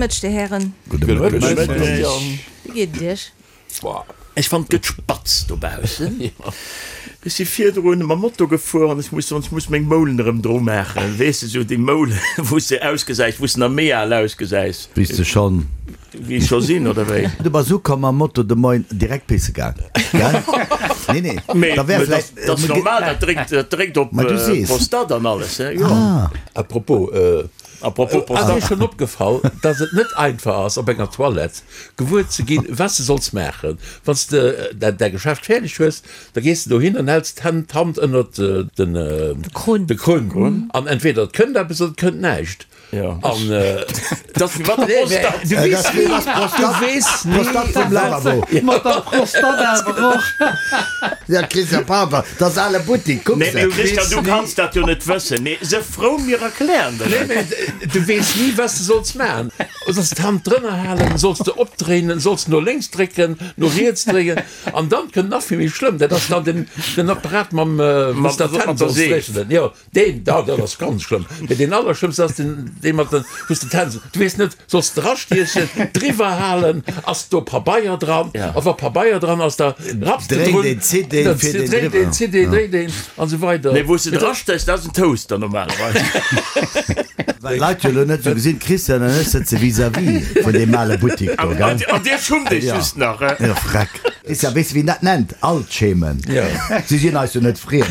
Mëtteg, Dir Hären. Gudde Mëtteg. Wéi geet et Iech? Ech fannen, et gëtt spatz dobaussen. Ech si virdrun mam Moto gefuer an ech muss soen, ech muss meng Moulen erëm dru maachen. Weess de, sou déi Moulen, wou s de ausgesäis, wou s de nach méi al ausgesäis. Wéi s de schonn. Wéi ech scho sinn, oder wéi? Du bass ukomm mam Moto de Moien, direkt pisse gaang, gell? Nee, nee, Mee da wär dat vläicht. dat ass normal, dat dréckt, dat dréckt op Ma du sees. d'Prostate an alles, he, jo. Ah. À propos, À propos ass Prostate. Iech schonn opgefall, dass et net einfach ass, op enger Toilette gewuer ze ginn, wat s de solls maachen? Wann s de däi Geschäft fäerdeg hues, da gees de dohin an häls d'Hänn, d'Hand ënnert den, De Krunn. de Krunn. An entweder et kënnt eppes oder et kënnt näischt. Ja. An Dat ass wéi mat der Prostate. du weess ni, du weess ni, Prostate vum Lavabo. Mat der Prostate awer och. Ja, Christian, pardon, dat ass ale Buttik, kuck Nee, se. mee Christian, du kanns dat jo net wëssen. Mee se frou, mir erklären der Nee, et. mee du weess ni, wat s de solls maachen. Solls d'Hand drënner halen, solls de opdréinen, solls no lénks drécken, no riets dréien. An dann kënnt nach vill méi schlëmm, dat ass dann den, den Apparat mam, wou s de d'Hänn Mat der solls Seef. dréchnen. Jo. Deen, da, dat ass ganz schlëmm. Mee deen allerschlëmmsten ass deen, dee mat den, wou s de d'Hänn, du weess net, solls de drastiechen, driwwer halen, ass do Pabeier dran? Ja. A wa Pabeier dran ass, da rapps de Dréint drun, een, zitt een, da fiert een dréint driwwer. een, zitt een, dréint een an esou weider. Nee, wou s de drastéchs, dat ass en Toaster normalerweis. Well d'Leit jo elo net esou gesinn, d'Christiane an ech sëtze vis-à-vis vun deem ale Buttik do, gell? An dir schummt iech Ja. just nach, he? Jo, freck. Christian, weess de wéi een dat nennt? Altschemen. Ja. Si sinn eis jo net friem.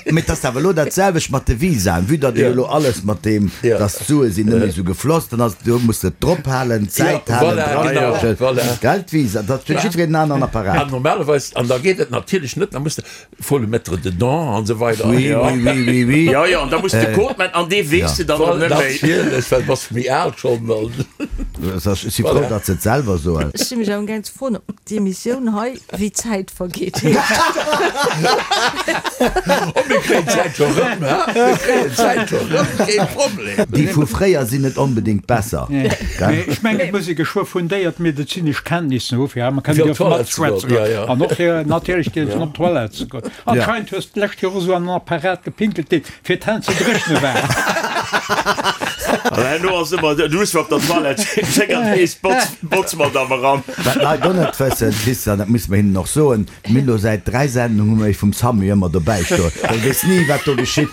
Mee et ass awer elo dat selwecht mat de Visaen. Vue datt een elo alles mat deem, datt d'Sue sinn net méi esou gefloss, dann ass, do muss de et drop halen, d'Säit halen, dran, gell, d'Visa, dat huet jiddwereen en aneren Apparat. An normalerweis, an da geet et natierlech net, da muss de, faut le mettre dedans an esou weider. Oui, oui, oui, oui, oui. Jo, jo, an da muss de Code man, an dee weess de dann och net méi. Natierlech, well du bass méi al schonn. Ech si frou, datt se et selwer soen. Ech si mech amgaang ze froen, ob d'Emissioun hei Wéi d'Zäit vergeet. Oh, mir kréien d'Zäit scho rëm, ha? Mir kréien d'Zäit scho rëm, kee Problem. Déi vu fréier sinn net onbedéngt besser, Mee gell? ech mengen, et muss ee geschwë fundéiert medezinesch Kenntnissen hu fir hei Fir kënnen op dierfe d'Toilette ze goen, matschwätzen ja, ja. an och fir natierlech dierfen op d'Toilette ze goen. Anscheinend hues de d'lescht Joer esou an en Apparat gepinkelt, dee fir d'Hänn ze dréchne war. An herno ass ëmmer, du hues op der Toilette schéngt nees d'Botzmadame eran. Wat d'Leit och net wëssen, Christian, dat musse mer hinnen och soen, mir hunn elo säit 3 Sendungen hu mer ee vum Samu ëmmer dobäi stoen, well weess ni wat do geschitt.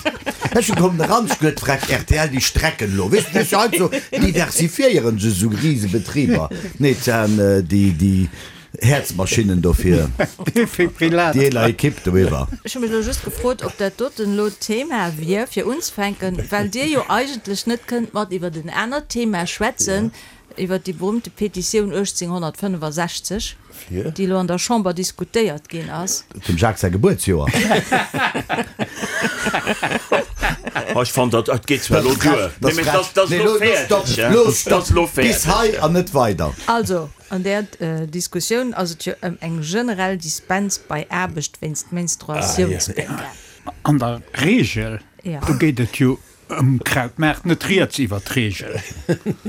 Ech hu kommen eran, ech huet frech rtl, déi strecken elo, weess de, weess jo heiansdo diversifiéieren se esou Risebetriber. Nee, et waren déi, déi Häerzmaschinnen do fir Defibrillator. déi eeler Ekipp doiwwer. Ech hu mech elo just gefrot, ob dat doten elo d'Thema wier, fir unzefänken, well Dir jo eigentlech net kënnt mat iwwert en anert Thema schwätzen, Iwwert déi berühmte Petitioun 1865, déi elo an der Chamber diskutéiert ginn ass. Dem Jacques säi Gebuertsjoer. Oh, ech fannen, dat dat geet zwar elo duer. Nee, mee dat ass elo fäerdeg, hè. Lo Dat ass elo stopp! Bis fäerdeg. hei an net weider! Also, an där Diskussioun ass et jo ëm eng generell Dispens bei Aarbecht wéinst Menstruatiounspéng gaang. An der Regel, do geet et jo Um Krautmaart net rieds iwwer d'Reegel,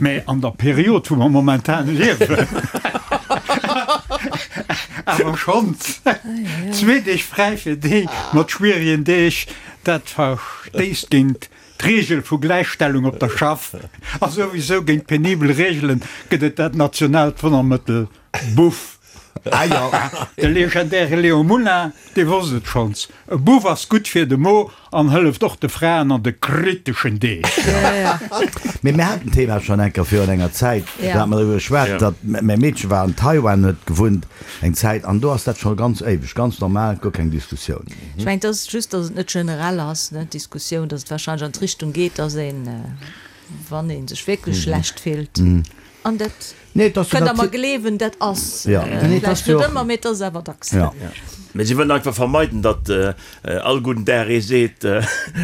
mä an der Period wou mer momentan liewen awer schonns. Zwee Deeg fräi fir déi mat schwierigen Deeg, dat verstéisst géint d'Reegel vu Gläichstellung op der Schaff a souwisou géint penibel Reegelen gëtt et dat nationaalt Wonnermëttel Buff. Ah jo. De legendäre Léon Moulin, dee wosst et schonns, E Buff ass gutt fir de Mo an hëlleft och de Fraen an de kriteschen Deeg. Mee mir haten d'Thema schonn eng Kéier virun enger Zäit, do hate mer driwwer geschwat, datt mäi Meedche war an Taiwan, huet gewunnt eng Zäit, an do ass dat scho ganz éiweg, ganz normal, guer keng Diskussioun. Ech mengen, et ass just, datt et net generell ass, ne, d'Diskussioun, datt et warscheinlech an d'Richtung geet, datt een, wann ee sech wierklech schlecht fillt, an dat Nee, et ass jo Kënnt der mer nati- gleewen, dat ass Ja. Nee, et ass vläicht jo net och- ëmmer, mee et ass awer dacks. Ja. Mee si wëllen einfach vermeiden, datt all gudden Dag ee seet,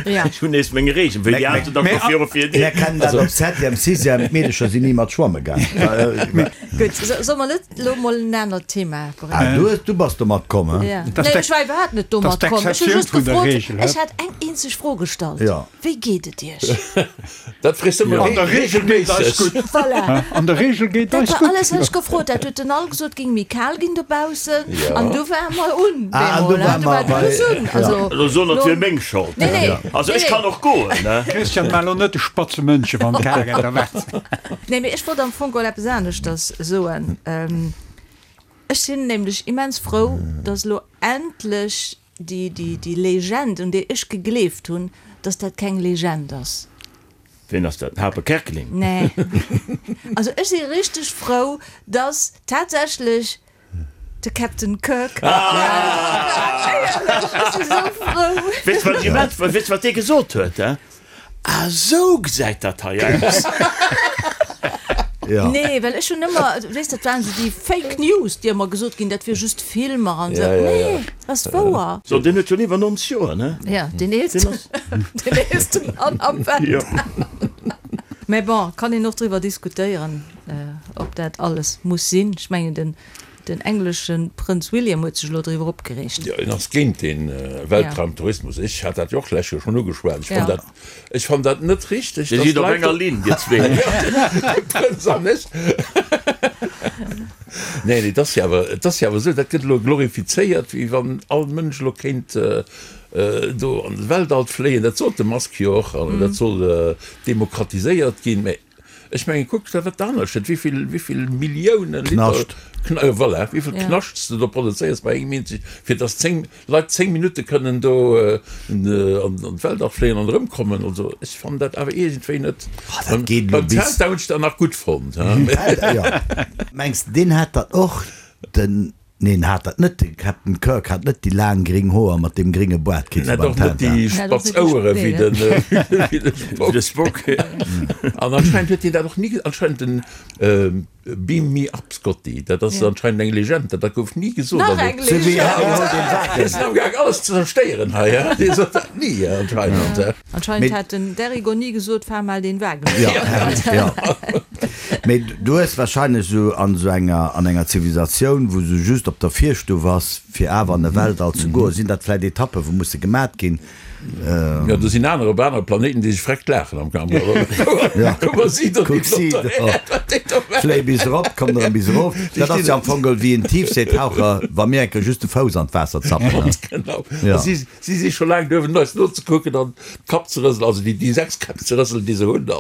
Ja. ech hunn nees meng Reegel, wéi déi aner da scho viru fir Mir kennen dat op Septième, Sixième, d'Meedecher sinn ni mat schwamme gaang. Gutt, solle mer net elo mol en anert Thema bréngen? Ah, du hues, du bass domat komm, he? Ja. Dat ass Nee, ech war iwwerhaapt net domat dat ass komm. Ech hu d'Exceptioun just vun der gefrot, Reegel, he? ech hat eng eenzeg Fro gestallt, Ja. Wéi geet et Iech? Dat frees de An der Regel geet eis gutt. Voilà. An der Regel geet Dat eis war gutt. alles, wat ech gefrot hat. Huet den all gesot, et géing méi kal ginn dobaussen. An du war mer un. un. Ah, an do Bemol, war du war mer de bei, Bus un. ja. Also, Elo soen, et lo- wier meng Schold. Nee, nee. Also Nee, ech nee. kann och goen, ne? Christian, maach elo net de spatze Mënche wann d'Karen da wat. Nee, mee ech wollt am Fong geholl eppes aneschters soen. Ech sinn nämlech immens frou, dass elo endlech déi, déi, déi Legend, un déi ech gegleeft hunn, dass dat keng Legend ass. Ween ass dat? Den Harpe Kerkeling? Nee. Also ech si richteg frou, dass tatsächlech de Captain Kirk. Éierlech, ech si sou frou. Weess de wat immens, weess de wat dee gesot huet, he? Ah sou gesäit dat hei aus. Ja. Nee, well ech hunn ëmmer, weess dat waren esou déi Fake News, déi ëmmer gesot ginn, dat wier just Filmer an esou. Ja, ja, ja. Nee, dat ass wouer. So, deen huet schonn iwwer 90 Joer, ne? Ja, deen eelsten, deen eelste Mann am Weltall. Mä bon, kann een och driwwer diskutéieren, ob dat alles muss sinn. Ech mengen, den Den englesche Prënz William huet sech elo driwwer opgereegt. Jo, en ass géint de Weltraumtourismus. Ech hat dat jo och d'lescht Joer schonn ugeschwat. Ech fann dat, ech fann dat net richteg, Dir dass sidd op d'Leit enger Linn, dir zwee. De Prënz an ech. Nee, nee, et ass jo awer, et ass jo awer esou, dat gëtt elo glorifizéiert, wéi wann all Mënsch elo kéint do an de Weltall fléien. Dat sot de Musk jo och, an dat soll demokratiséiert ginn. Mä Ech mengen, kuck der wat anescht, wéi vill, wéi vill Milliounen Liter Knascht. Kn voilà, wéi vill Ja. Knascht s de do produzéiers bei engem eenzeg, fir dass 10 Leit 10 Minutte kënnen do an an d'Weltall fléien an erëmkommen. Also ech fannen dat awer iergendwéi net. Ah, dat geet elo Beim bis. Zelta hunn ech dat nach gutt fonnt, he. Ja. Mengs de, deen hat dat och, den Neen, hat dat net. De Captain Kirk hat net déi laang gring Hoer mat deem gringe Boart kritt Hat wéi beim och net Tintin. déi spatz Ouere wéi de Spock. An anscheinend huet hien dat och ni, anscheinend den Beam me up Scotty, dat ass anscheinend eng Legend, dat gouf ni gesot. Nach eng Legend! Mir sinn amgaang alles ze zerstéieren hei, he? Dee sot dat ni anscheinend. Anscheinend hat den Derigo ni gesot, Fahr mal den Wagen. Jo. Mee du hues wahrscheinlech esou an esou enger, an enger Zivilisatioun, wou sou just op der Virstuff ass, fir awer an de Weltall ze goen, sinn dat vläit Etappen, wou musse gemat ginn. Jo, do sinn aner op anere Planéiten, déi sech vreckt laachen am Kampf. Kuck mol si do, Kuck si do, fléi bis erop, komm erëm bis erof. Dat ass jo am Fong geholl wéi en Tiefseetaucher, wa mir eng Kéier just de Fouss an d'Waasser zappen. Ganz genau. Ja. Si, si si scho laang duerwen, eis nozekucken an d'Kapp ze rëselen, also déi, déi 6 Käpp ze rëselen, déi se hunn.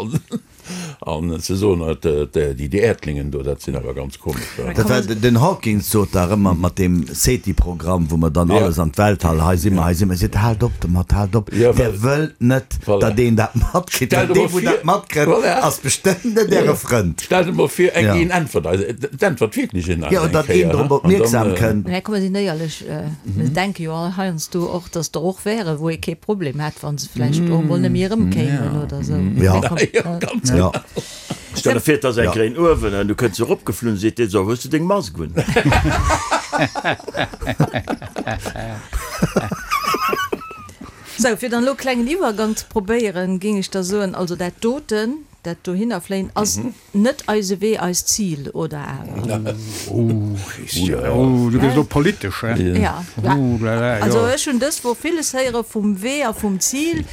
An ze soen, déi Äerdlingen do, dat sinn awer ganz komesch. Dat war, den Hawkins sot dach ëmmer mat deem SETI-Programm, wou mer dann alles an d'Weltall, hei si mer, hei si mer, seet, haalt op domat, haalt op, Dir wëllt net, datt een dat matkritt, well dee wou dat matkritt, ass bestëmmt net Äre Frënd. Stellt emol vir, eng een äntwert eis, et äntwert wierklech een eis Jo, eng datt een Kéier, drop an dann. opmierksam kënnt. Mä komm, mer sinn éierlech, mir denke jo all heiansdo och, datt der och wäre wou ee kee Problem hätt, wa se vläicht och emol net méi erëmkéimen oder esou. Ja. Ja, ganz Ja. Stell der vir, et ass eng Ja. gréin Uewen an du kënns eropgeflunn, seet deen, So, hues du deng Mask un? Sou, fir dann elo e klengen Iwwergang ze probéieren, géing ech da soen, also dat doten, dat dohinnerfléien ass net eise Wee, eist Zil, oder awer? Oh, Christian, oh, du gëss elo politesch, he? Ja. Oh la la, jo. Also ech hunn dës Woch villes héiere vum Wee a vum Zil.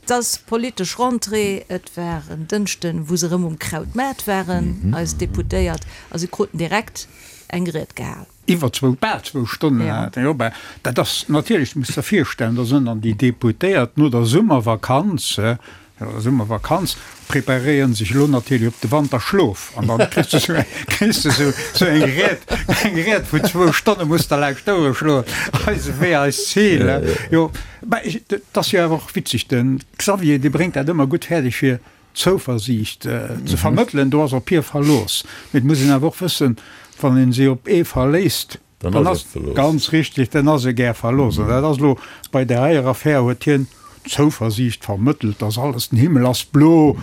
Et ass politesch Rentrée, et war en Dënschden, wou se erëm um Krautmaart waren, eis Deputéiert, a se kruten direkt eng Ried gehal. Iwwer zwou, bal zwou Stonnen hat en, jo, bah, dat ass natierlech, du muss der virstellen, da sinn dann déi Deputéiert no der Summervakanz, no der Summervakanz, preparéieren sech elo natierlech op de Wanterschlof an dann kriss de sou, kriss de sou, sou eng Ried, eng Ried vun zwou Stonne muss der lauscht d'Ouere schloen, eise Wee, eist Zil, jo. Bah, ech, et ass jo awer och witzeg, de Xavier, dee bréngt dat ëmmer gutt fäerdeg fir Zouversiicht ze vermëttelen, do ass op hie Verlooss. Mee et muss een awer och wëssen, wann ee si op ee verléisst, dann ass, ganz richtig, dann ass e gär verlooss. An dat ass elo bei där heier Affär, huet hien Zouversiicht vermëttelt, dass alles, den Himmel ass blo,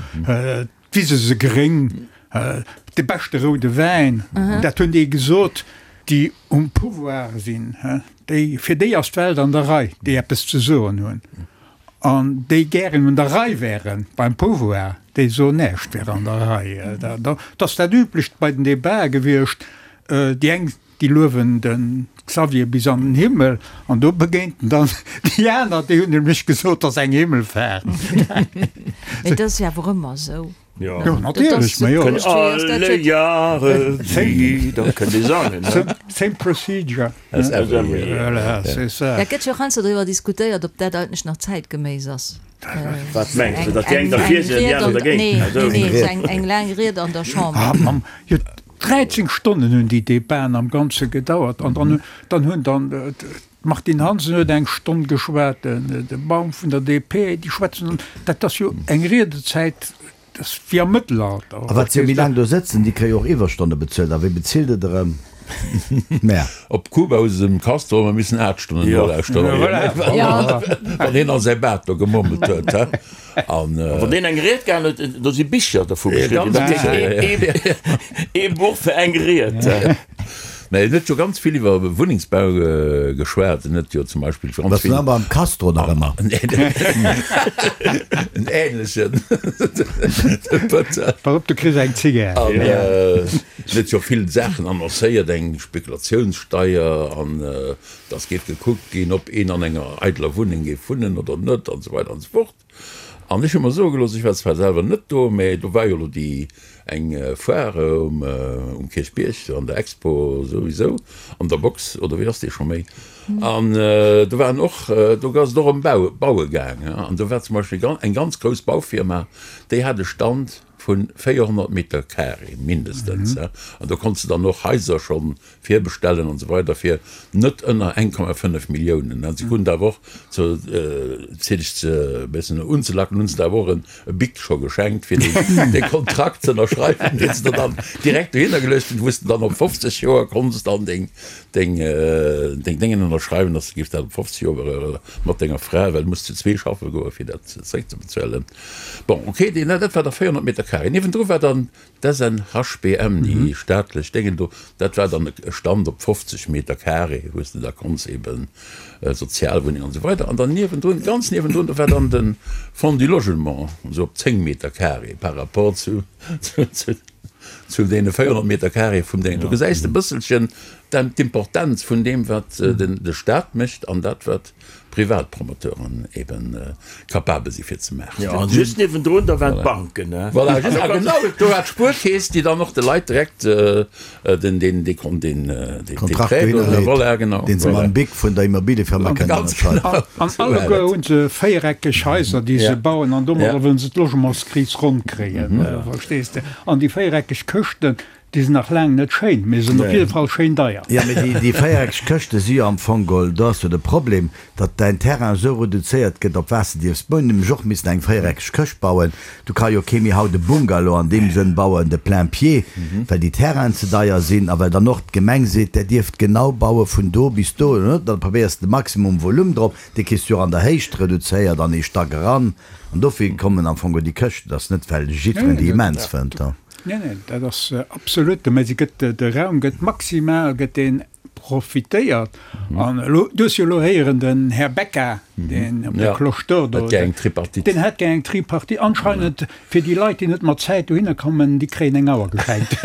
d'Wise se gréng, de beschte roude Wäin, dat hunn déi gesot, déi um Pouvoir sinn, déi, fir déi ass d'Welt an der Rei, déi eppes ze soen hunn. An déi gären un der Rei wären beim Pouvoir, déi soen, näischt wär an der Rei. Dat ass dat Üblecht bei den Debatë gewiescht. Déi eng, déi luewen de. Xavier bis an den Himmel an do begéint en dann déi aner, déi hunn nämlech gesot, 't ass eng Himmelfaart. Mee dat ass jo awer ëmmer esou. Jo, natierlech, ma jo. Kënnt alle Jahre wieder, kënnt ee sangen, ne? Same procedure. As every year. Voilà, c'est ça. Et gëtt jo och heiansdo driwwer diskutéiert, ob dat eigentlech nach zäitgeméiss ass. Wat mengs de, datt déi eng derfir sinn an déi aner dergéint? Nee, nee, nee, esou eng laang Ried an der Chamber. Ah, Mamm, jo, 13 Stonnen hunn déi Debaten am Ganze gedauert an dann, dann hunn dann d'Martine Hansen huet eng Stonn geschwat, de Baum vun der DP, déi schwätzen, dat ass jo eng Riedezäit, dat ass wéi am Mëttelalter. A wat se jo méi laang do sëtzen, déi kréie jo och Iwwerstonne bezuelt. A wéi bezilt et erëm? Mä. Op Kuba hu se dem Castro ëmmer missen 8 Stonnen nolauschteren, wann hien a säi Baart do gemurmelt huet. An wann deen eng Ried gehalen huet, do si Bicher dervu geschriwwen ginn. Dat heescht, ee Buch fir eng Ried. Mä en huet jo ganz vill iwwer Wunnengsbau geschwat. En huet jo zum Beispill ganz vill. Ass beim Castro nach ëmmer? En änlechen, de Pëtter. Pass op, du kriss eng Zigär. An en huet jo vill Saachen annoncéiert, eng Spekulatiounssteier an dass géif gekuckt ginn, ob een an enger eideler Wunneng géif wunnen oder net an esou weider an esou fort. An ech hu mer soe gelooss, ech war zwar selwer net do, mä do war jo elo déi eng Foire um um Kierchbierg, an der Expo souwisou, an der Box, oder wéi ass déi scho méi? An do waren och, do ass et och ëm Bau, Baue gaang, an do war zum Beispill eng ganz grouss Baufirma, déi hat e Stand vu 400 Meter carré mindestens, an do konns de dann och Haiser schonn virbestellen an esou weider fir net ënner 1,5 Milliounen. An se kruten awer och, zu fir dech ze e bëssen unzelacken, hunn se der awer och e Bic scho geschenkt, fir dee Kontrakt ze ënnerschreiwen, deen se der dann direkt dohinner geluecht hunn, wou s de dann op 50 Joer konns dann deng deng deng Déngen ënnerschreiwen, dass de giffs dat op 50 Joer mat denger Fra, well du muss zu zwee schaffe goen, fir dat zeréckzebezuelen. Bon, okay, deen, dat war da 400 Meter carré. Niewendru war dann D'SNHBM, déi staatlech Déngen do, dat war dann e Stand op 50 Meter carré, wou s de da konns eben Sozialwunneng an esou weider. An dann niewendrun, ganz niewendrun, do war dann de Fonds du Logement, esou op 10 Meter carré par rapport zu, zu deene 400 Meter carré vum Déngen. Do gesäis de e bësselchen d'Importenz vun deem, wat de Stat mécht an dat, wat Privatpromoteuren eben capabel si fir ze maachen. Jo, an just niewendrun, da waren d'Banken, ne? Voilà, just, a genau, do war d'Spuerkeess, déi dann och de Leit direkt den, den, dee Kon, den, dee Kontrakt Prêt do, dohinner leet, voilà, genau, deen se voilà. mam Bic vun der Immobiliefirma kënnen Ganz ënnerschreiwen. genau, An esou war alleguer et. hu se véiereckeg Haiser, déi se Ja. bauen, an domadder Ja. wëllen se d'Logementskris ronn kréien, verstees de? An déi véiereckeg Këschten, Déi sinn nach laang net schéin, mee sinn op jidde Fall schéin deier. Jo, mee déi, déi véiereckeg Këschte si jo am Fong geholl, do ass jo de Problem, datt däin Terrain esou reduzéiert gëtt, op wat s de dierfs bauen. Hunn nämlech och missen eng véiereckeg Këscht bauen. Du ka jo kee méi haut e Bungalow an deem Sënn bauen, de plein pied, well déi Terrainen ze deier sinn a well dann och d'Gemeng seet, där dierft genau baue vun do bis do. Da probéiers de de Maximum Volume drop, dee kriss du jo och an der Héicht reduzéiert an ee Stack eran. An dofir kommen am Fong geholl déi Këschten. Dat ass net, well jiddwereen déi immens fënnt. Neen, neen, dat ass absolut, mä se gëtt, de Raum gëtt maximal gëtt deen profitéiert. An elo, du hues jo elo héieren, den Här Becca, deen op der Cloche d'Or do, Hätt gär eng Tripartite. deen hätt gär eng Tripartite. Anscheinend fir déi Leit, déi net mat Zäit dohinner kommen, déi kréien eng Auer geschenkt.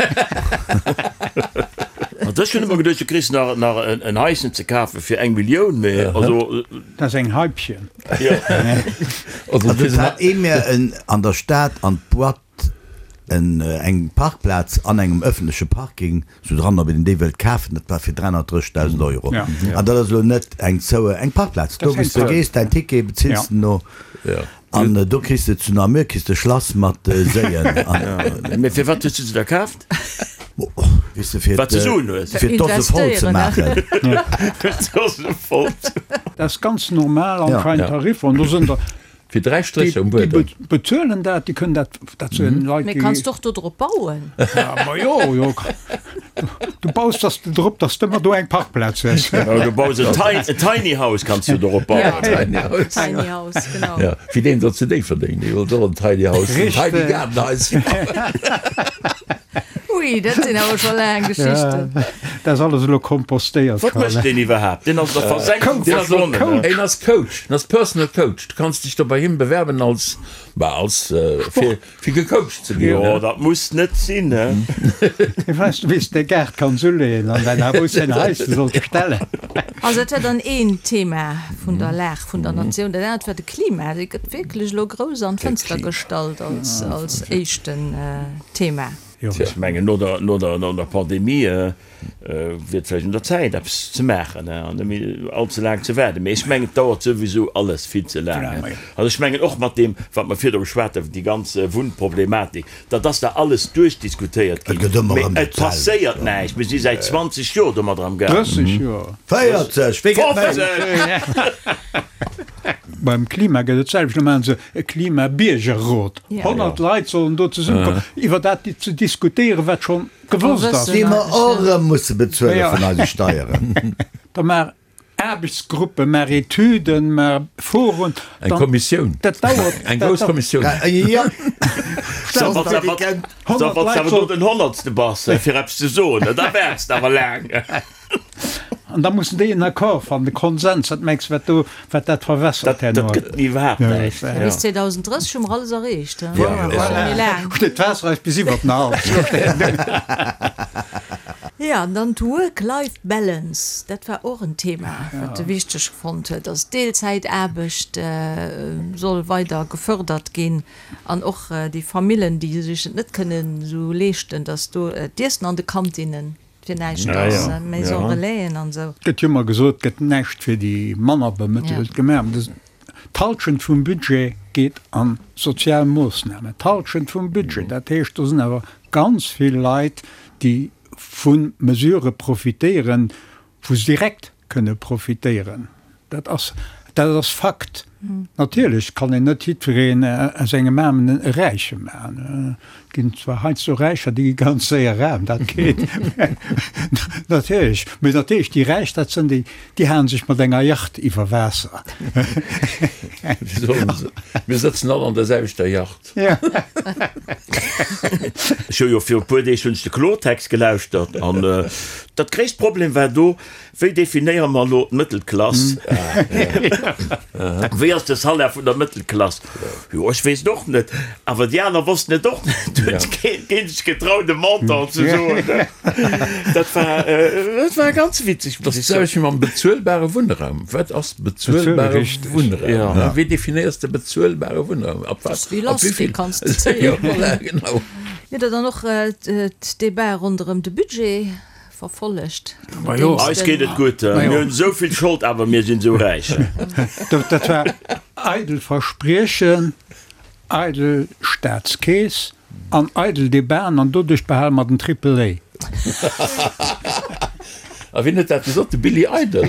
Also ech hunn ëmmer geduecht, du kriss nach, nach en Haischen ze kafe fir eng Millioun, mä also. Dat ass eng Haipchen. Also Also et hat ee mir en an der Stad an d'Boîte En eng Parkplaz an engem ëffentleche Parking sou dran, ob een déi wëllt kafen, dat war fir 330.000 Euro. An dat ass elo net eng zoue, eng Parkplaz, do wou s de gees, däin Ticket bezills de no an do kriss de zu Namur kriss de Schlass mat Séien. Mee firwat hues du se da kaaft? Weess de, fir Wat ze soen hues. fir d'Dose voll ze maachen. D'Dose voll ze. Dat ass ganz normal anscheinend Tariffer an do sinn der Fir 3 Strécher um Buedem. Déi bezuelen dat, déi kënnen dat, dat sinn Leit, Mee déi. kanns d'och do drop bauen. Ja, ma jo, jo. Du baus dass de drop, dass de ëmmer do eng Parkplaz hues. Jo, du baus en Tiny House kanns du dorop bauen. Ja, Tiny House. Tiny House, genau. Ja, wéi deen do zu Déifferdeng, dee wollt och en Tiny House, en Tiny Gaardenhaischen bauen. Ui, dat sinn awer scho laang Geschichten. Dat ass alles elo kompostéiert. Wat mécht deen iwwerhaapt? Deen ass der Versenkung verschwonnen. Een ass Coach, en ass Personal Coach. Du kanns dech do bei him bewerben als, bah, als, fir, fir gecoacht ze ginn. Jo, dat muss net sinn, he. Hie weess, wéi s de Gaart kanns uleeën an däin Haus säin Haische solls stellen. Also dat war dann een Thema vun der Lag vun der Natioun. Dat anert war de Klima. Dee gëtt wierklech elo grouss an d'Fënster gestallt als, als éischten Thema. Ech mengen, no der, no der, no der Pandemie wier et vläicht un der Zäit, eppes ze maachen an net méi all ze laang ze waarden. Mee ech mengen, et dauert souwisou alles vill ze laang. Also ech mengen och mat deem, wat mer virdru geschwat hunn, déi ganz Wunnproblematik, dat ass da alles duerchdiskutéiert ginn, mee et passéiert näischt. Mir si säit 20 Joer domadder am Gaang. 30 Joer. 40, wéi gëtt méi? Beim Klima gëtt et d'selwecht. Lo maache se e Klimabiergerrot. 100 Leit sollen do zesummekommen, iwwer dat ze diskutéieren, wat schonn gewosst ass. Déi mer och erëm musse bezuele vun eise Steieren. Da maach Aarbechtsgruppen, maach Etüden, maach Foren. Eng Kommissioun. Dat dauert. Eng grouss Kommissioun. Jo. So, wann s awer do den Honnertste bass, fir eppes ze soen, da waarts de awer laang. An da mussen déi en Accord fannen, e Konsens. Wat mengs de, wat do, wat dat verwässert herno? Dat gëtt iwwerhaapt näischt. Bis 2030 hu mer alles erreecht. Voilà. Steet d'Waasser eis bis iwwert den Hals. Jo, an dann d'Work-Life-Balance, dat war och en Thema, wat e wichteg fonnt huet, dass d'Deelzäitaarbecht soll weider gefördert ginn an och déi Famillen, déi sech et net kënnen esou leeschten, dass do d'Iessen an de Kantinnen Fir näischt ass, Maison Relaisen an esou. Et gëtt jo ëmmer gesot, et gëtt näischt fir déi manner Bemëttelt gemaach. D'Halschent vum Budget geet a sozial Moossnamen. D'Halschent vum Budget! Dat heescht, do sinn awer ganz vill Leit, déi vu Mesurë profitéieren, wou se direkt kënne profitéieren. Dat ass, dat ass Fakt. Natierlech kann een net jiddwereen aus engem Aarmen e Räiche maachen. Et ginn zwar heiansdo Räicher, déi gi ganz séier aarm, dat geet natierlech. Mee natierlech, déi Räich, dat sinn déi, déi halen sech mat enger Yacht iwwer Waasser. Mir sëtzen all an der selwechter Yacht. Ech hu jo viru puer Deeg hunn ech de Kloertext gelauschtert an dat gréisst Problem war do, Wéi definéiere mer elo d'Mëttelklass? Wéi ass de Salaire vun der Mëttelklass? Jo, ech weess et och net. Awer déi aner wossten et och net. Do huet keen sech getraut, e Montant ze soen. Dat war, dat war ganz witzeg, muss ech soen. Dat ass d'selwecht wéi mam bezuelbare Wunnraum. Wat ass bezuelbare Wunnraum? Wéi definéiers de bezuelbare Wunnraum? Ab wat? Ab wéi vill? Kanns de zéien. Jo, voilà, genau. Mir hutt Der dann och d'Debatë ronderëm de Budget verfollegt. Eis geet et gutt. Mir hunn esou vill Schold, awer mir sinn esou räich. Dat war eidel Verspriechen, eidel Staatskeess an eidel Debaten an doduerch behale mer den Triple A. A wien huet dat gesot? De Billy Idol?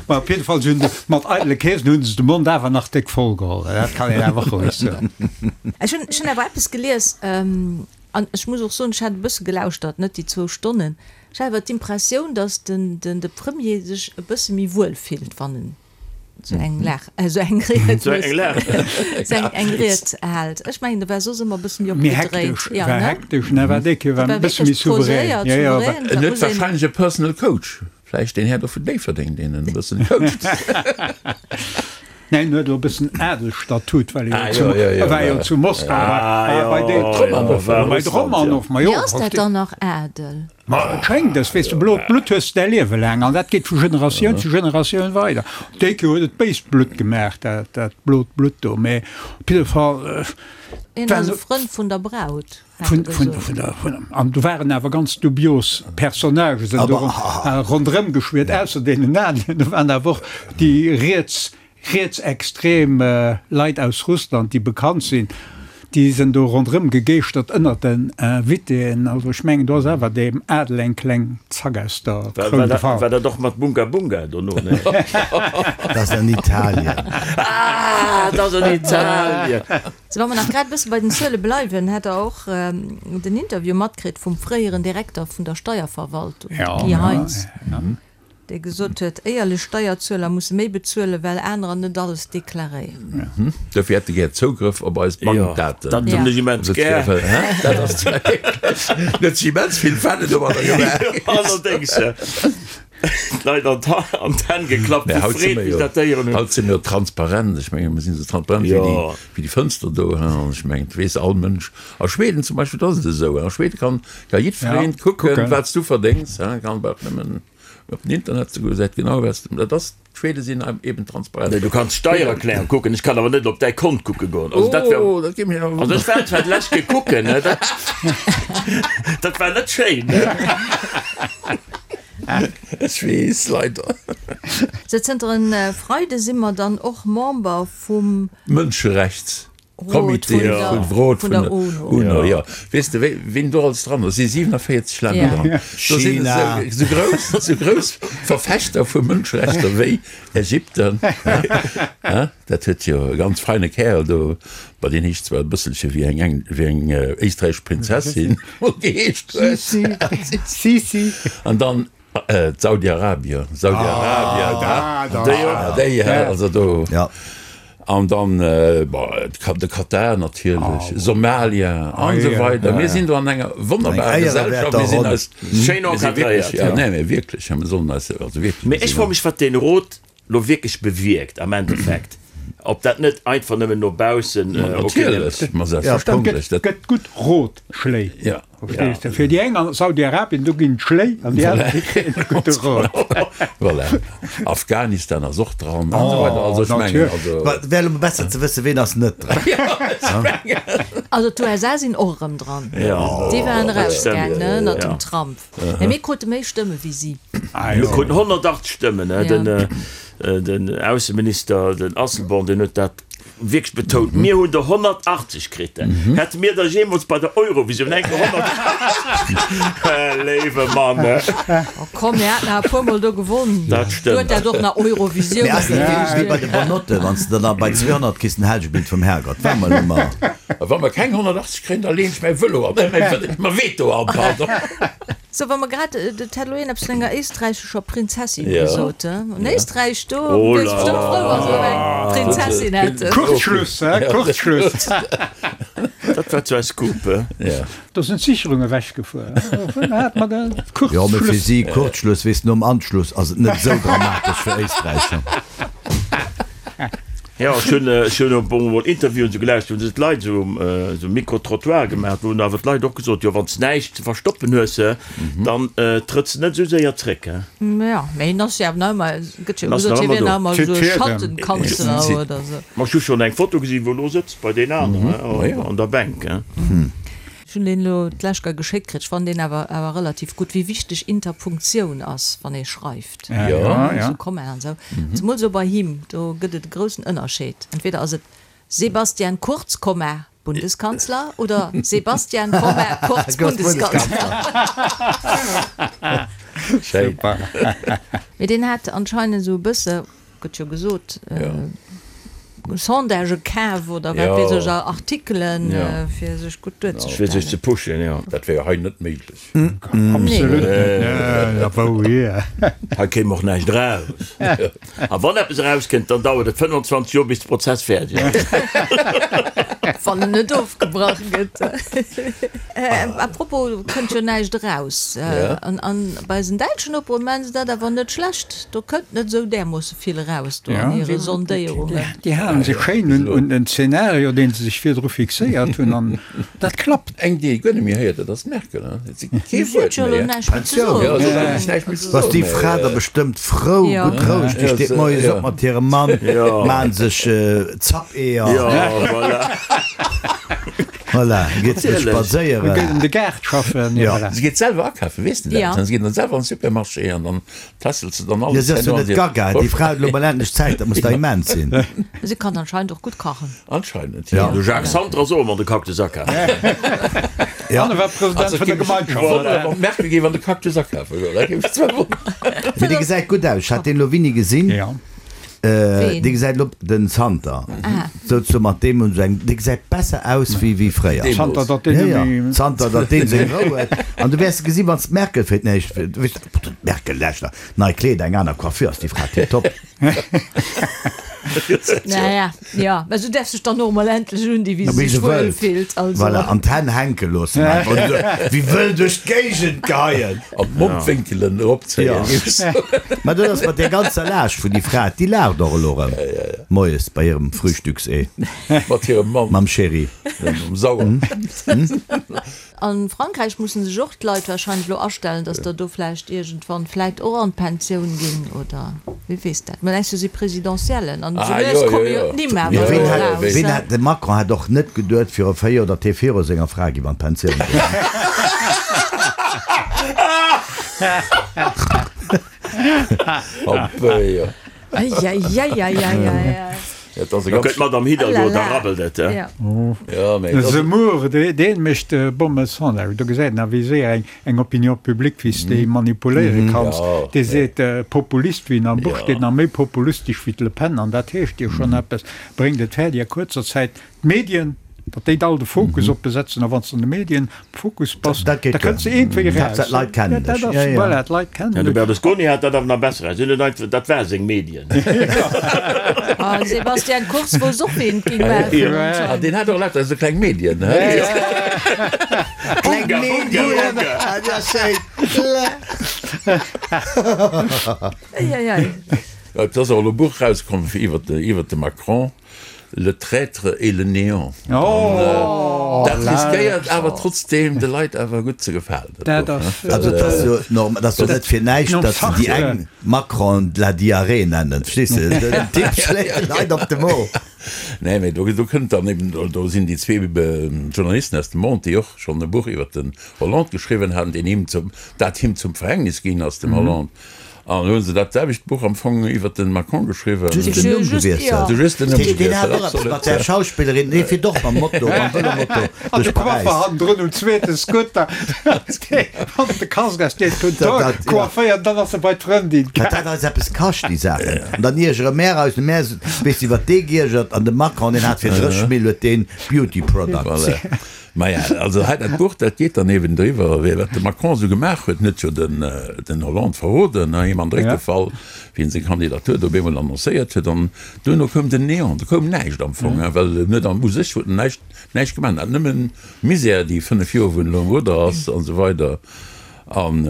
Ma op jidde Fall, se hunn de, mat eidele Keesen hunn se de Mond awer nach déck voll geholl. Dat kann een awer roueg soen. Ech hunn, ech hunn awer eppes gelies, An ech muss och soen, ech hat e bësse gelauschtert, net déi zwou Stonnen, ech hat awer d'Impressioun, datt den, den, de Premier sech e bësse méi wuel fillt, wann en esou eng Lag, esou eng Ried Esou eng Lag. esou eng, eng Ried hält. Ech mengen, e war soss ëmmer e bësse méi Méi opgedréint. hektesch, Ja, war ne? hektesch, ne, war déi Kéier war War e bësse méi wierklech souverän. poséiert, Ja, ja, war. souverän, En dat huet muss een. warscheinlech e Personal Coach, vläicht deen Här do vun Déifferdeng, deen en e bëssen coacht. Neen, en huet elo e bëssen Adelstatut, well e jo, war jo zu Moskau, war bei de bei de Romanov. Ma jo, Mee ass dat dann nach Adel? Ma et schéngt es, weess de, blot Blutt hues de däi Liewe laang an dat geet vu Generatioun zu Generatioun weider. Déi Kéier huet et béist Blutt gemaach, dat dat blot Blutt do, mee op jidde Fall. Hien ass e Frënd vun der Braut, hat e gesot. An do waren awer ganz dubios Personnagen sinn do ronderëm geschwiert, ausser deenen aneren. Do waren awer och déi riets, rietsextrem Leit aus Russland, déi bekannt sinn, déi sinn do ronderëm gegeeschtert ënnert den Invitéen. Also ech mengen, do ass awer deem Adel eng kleng Zack aus der Kroun gefall. War dat och mat Bunga Bunga dono? Nee. Dat ass an Italien. Ah, dat ass an Italien. Sou, wa mer nach grad e bësse bei den Zuele bleiwen, hat Der och den Interview matkritt vum fréieren Direkter vun der Steierverwaltung, de Guy Heintz. Dee gesot huet, éierlech Steierzueler musse méi bezuelen, well anerer net alles deklaréieren. Dofir hätt e gär Zougrëff op eis Bankdaten. Dat hunn ech immens gär. Dat ass wierklech, huet sech immens vill Fälle domadder gemaach. Allerdéngs, d'Leit an d'Hänn geklappt vu Freed, wéi se dat héieren hunn. Haut si mir jo transparent. Ech menge mir sinn esou transparent wéi déi Fënster do. An ech mengen, et weess all Mënsch. A Schweden zum Beispill, do ass et esou. A Schweden kann jiddwereen kucken, wat s du verdéngs. Kann bal nëmmen. Op den Internet ze goen, gesäit genau wat s de, dat ass, d'Schwede sinn eben transparent. Nee, du kanns d'Steiererklärung kucken, ech kann awer net op däi Kont kucke goen. Also dat wär, Oh, dat géif mech awer also ech war zwar d'lescht Kéier kucken, ne, dat, dat war net schéin, ne. Ech weess, leider. Sou, zënter en Freide si mer dann och Member vum. Mënscherechts. Rot Comité vun der, vun Rot vun vun der der UNO. UNO, jo. Weess de, wéi, wien do alles dran ass? Si 47 Länner Ja. dran. Do sinn China. esou, esou grouss, esou grouss Verfechter vu Mënscherechter wéi Ägypten. Hein? Dat huet jo e ganz feine Kärel do, bah, deen heescht zwar e bësselche wéi eng eng, wéi eng éisträichesch Prinzessin geheescht huet. Sisi, Sisi. An dann D'Saudi-Arabien, Saudi-Arabien, déi och, déi, also do, an dann, bon, de Katar natierlech, Somalia an esou weider. Mir sinn do an enger wonnerbarer Gesellschaft, mir sinn eis schéin encadréiert. Jo, nee, mee wierklech, mir sollen eis also wierklech. Mee ech froe mech, wat deen Rot lo wierklech bewierkt am Endeffekt, ob dat net einfach nëmmen no baussen, okay, Natierlech, ma selbstverständlech, dat. Gëtt gutt Rotschléi. Ja. Verstees de? Fir déi eng an Saudi-Arabien, do ginn d'Schléi an déi aner, déi kréien e gudde Rot. Voilà. Afghanistan ass och dran an esou weider. Also ech mengen, also. Mä et wär elo mol besser ze wëssen, ween ass net dran. Also d'USA sinn och erëm dran. Déi waren erausgaang, ne, ënnert dem Trump. Mä mir krute méi Stëmme wéi si. Mir kruten 180 Stëmmen, ne. Den Ausseminister, den Asselborn, deen huet dat Wierklech betount, mir hunn der 180 kritt. Hätte mir der jeemools bei der Eurovisioun eng Kéier 180? Léiwe Mann! Oh komm, mir haten awer e puer Mol do gewonn. Dat Du huet stëmmt. dat och nach Eurovisioun Mee ass net wéi geheescht. bei de Bonnotte, wann s de dann bei 200 kriss den Helgebild vum Herrgott. War mol ëmmer. A wa mer keng 180 kréien, da leen ech mäi Vëlo an, mäi Veto an, pardon. Sou, wa mer grad, et hat elo een eppes vun enger éisträichescher Prinzessin Ja. gesot, he? An Éisträich, do Oh wier se bestëmmt frou, wa se erëm eng Prinzessin hätten. Kurzschluss, he? Kurzschluss. Dat war zwar e Scoop, he? Ja. Do sinn d'Sicherung ewechgefuer. Vun hat mer de Jo, mee fir Kurzschluss. si Kurzschluss, weess, nom Anschluss ass et net esou dramatesch fir Éisträich. Jo, ech hunn, ech hunn e puer mol Interviewen esou gelauschtert, wou se d'Leit esou, esou Micro-trottoir gemaach, wou hunn awer d'Leit och gesot, jo wann s näischt ze verstoppen hues, dann trëtts de net esou séier zréck, he. Jo, mee hien ass jo awer nach ëmmer, et gëtt jo En ass gesot, nach hie ëmmer wier do. nach ëmmer esou e Tüt Schattenkanzler oder esou. Ma ech hu schonn eng Foto gesinn, wou e lo sëtzt bei deenen aneren, he, an der Bänk, he. Ech hunn deen elo d'lescht Kéier geschéckt kritt. Ech fannen deen awer awer relativ gutt, wéi wichteg Interpunktioun ass, wann ee schreift. Ja, ja. Esou Kommaen an esou. Zemol esou bei him, do gëtt et e groussen Ënnerscheed. Entweder ass et Sebastian Kurz, Komma, Bundeskanzler oder Sebastian, Komma, Kurz, Bundeskanzler. Schéin. Mee deen hat anscheinend esou e bësse Gëtt jo gesot, Sondagë kaf oder wat weess ech, Artikelen, fir sech gutt duerzestellen. Fir sech ze pushen, jo. Dat wär jo hei net méiglech. Absolut net. Wou hier? Hei kéim och näischt eraus. A wann eppes erauskënnt, dann dauert et 25 Joer, bis de Prozess fäerdeg ass. Wann en net ofgebrach gëtt. A propos, kënnt jo näischt eraus. An bei eisen däitschen Nopere maachen se dat awer net schlecht. Do kënnt net esou därmoosse vill eraus do an hire Sondéierungen. Déi halen sech schéin un den Zeenario, dee se sech virdru fixéiert hunn, an dat klappt. Eng, déi ee guer net méi héiert, dat ass d'Merkel. Et si kee Si huet Wuert jo elo méi. näischt méi ze soen. Jo, si huet eigentlech näischt méi ze Ass soen. déi Fra da bestëmmt frou, gutt roueg, déi steet moies op mat hirem Mann, maan sech Zappeeër. Jo, voilà. Voilà, geet se spadséieren. Geet an de Gaart schaffen. Si geet selwer akafen, weess de dat? Si geet dann selwer an de Supermarché an dann Tässelt se dann Jo, alles si ass jo herno an net hir gaga, déi Fra huet elo mol endlech Zäit, dat muss der immens sinn. Si kann anscheinend och gutt kachen. Anscheinend, Ja. jo. De Jacques Santer ass och ëmmer an de Cactus akafen. Ja. An e war President Also vun der géif ech Gemeinschaft. wonneren, wann d'Merkel géif an de Cactus akafe goen, dat géif mech zwar wonneren. Mee dee gesäit gutt aus, ech hat deen elo wini gesinn. Ja. Dee gesäit elo, den Zanter, souzesoen mat deem hunn se eng, dee gesäit besser aus wéi wéi fréier. Zanter datt deen net méi. Zanter datt deen seng Rou huet. An du wäers gesi wann s d'Merkel fir d'éischt, d'Merkel, leschter, nei Kleeder, eng aner Coiffure, ass déi Fra tiptop. Naja, jo, mä se däerf sech dann och emol endlech undinn, wéi se sech wuel fillt. Also. Voilà, an d'Hänn hänke loossen einfach und esou wéi wëll duerch d'Géigend geheien. An d'Mondwénkelen eropzéien. Mä dat ass mat där ganzer Laascht vun déi Fra, déi laacht och elo erëm moies bei hirem Frühstücksee. Mat hirem Mann. Mam Chéri. Mam Sauer. A Frankräich mussen sech och d'Leit wahrscheinlech elo astellen, datt der do vläicht iergendwann vläicht och an d'Pensioun ginn, oder wie weess dat. Mä nächst Joer si Presidentiellen an esou lues komme jo d'Nimm awer elo eraus. Ween hat, de Macron hat och net geduet viru 4 Joer, datt hie viru senger Fra géif an d'Pensioun goen. Eieieiei. Da gëtt d'Madame Hidalgo, da rabbelt et. De Zemmour, dee mécht bomme Sondage. Do gesäit een awer, wéi séier eng Opinion publique, wéi s de déi manipuléiere kanns. Dee seet, Populist, wéi en am Buch steet, nach méi populistesch wéi d'Le Pen, an dat heescht jo schonn eppes, bréngt et fäerdeg a kuerzer Zäit d'Medien, datt déi all de Fokus op besetzen. A wann s de an de Medien am Fokus bass, da kënns de iergendwéi eraus. D'Leit kennen dech. Voilà, d'Leit kennen dech. De Berlusconi hat dat awer nach besser eraus. Hien huet einfach, dat war seng Medien. A Sebastian Kurz wousst och, wéi en et géing maachen anscheinend. Deen hat och lauter esou kleng Medien. Kleng Medien, dat ass schéin. Eieiei. Et ass och elo e Buch erauskomm iwwer de Macron. Le traître et le néant. Dat riskéiert awer trotzdeem de Leit awer gutt ze gefalen, dat Buch, ne? Also et ass jo normal, et ass jo net fir näischt, datt se déi eng Macron de la diarrhée nennen, verstees de? Den Typ schléit de Leit op de Mo. Nee, mee do kënnt dann eben, do sinn déi zwee Journalisten aus dem Monde, déi och schonn e Buch iwwert den Hollande geschriwwen haten, deen him zum, dat him zum Verhängnis ginn ass, dem Hollande. An elo hunn se dat selwecht Buch am Fong iwwert de Macron geschriwwen. Just den Numm gewiesselt. Just den Numm gewiesselt, Deen hat och eppes mat där Schauspillerin, dee fiert och mam Moto, mam Vëlomoto An de duerch Paräis. Coiffer hannendrun um zweete Scooter, wann de Casque aus deet, hunn d'Hoer coifféiert, dann ass e bei d'Frëndin Wat dat eis eppes kascht, déi Saachen. An dann iergere mär eis, mär, weess de, iwwert dee giergert an de Macron, deen hat fir 30 Mill huet deen Beauty Products. Voilà. Maja, also hei dat Buch, dat geet dann eben driwwer, wéi wat de Macron esou gemaach huet. En huet jo den, den Hollande verroden, he, him an de Réck gefall, wéi en seng Kandidatur do op eemol annoncéiert huet. An duerno koum den Néant, do koum näischt am Fong, he, well en huet am, u sech huet en näischt, näischt gemaach. En hat nëmmen Misär déi 5 Joer, wou en elo am Rudder ass an esou weider. An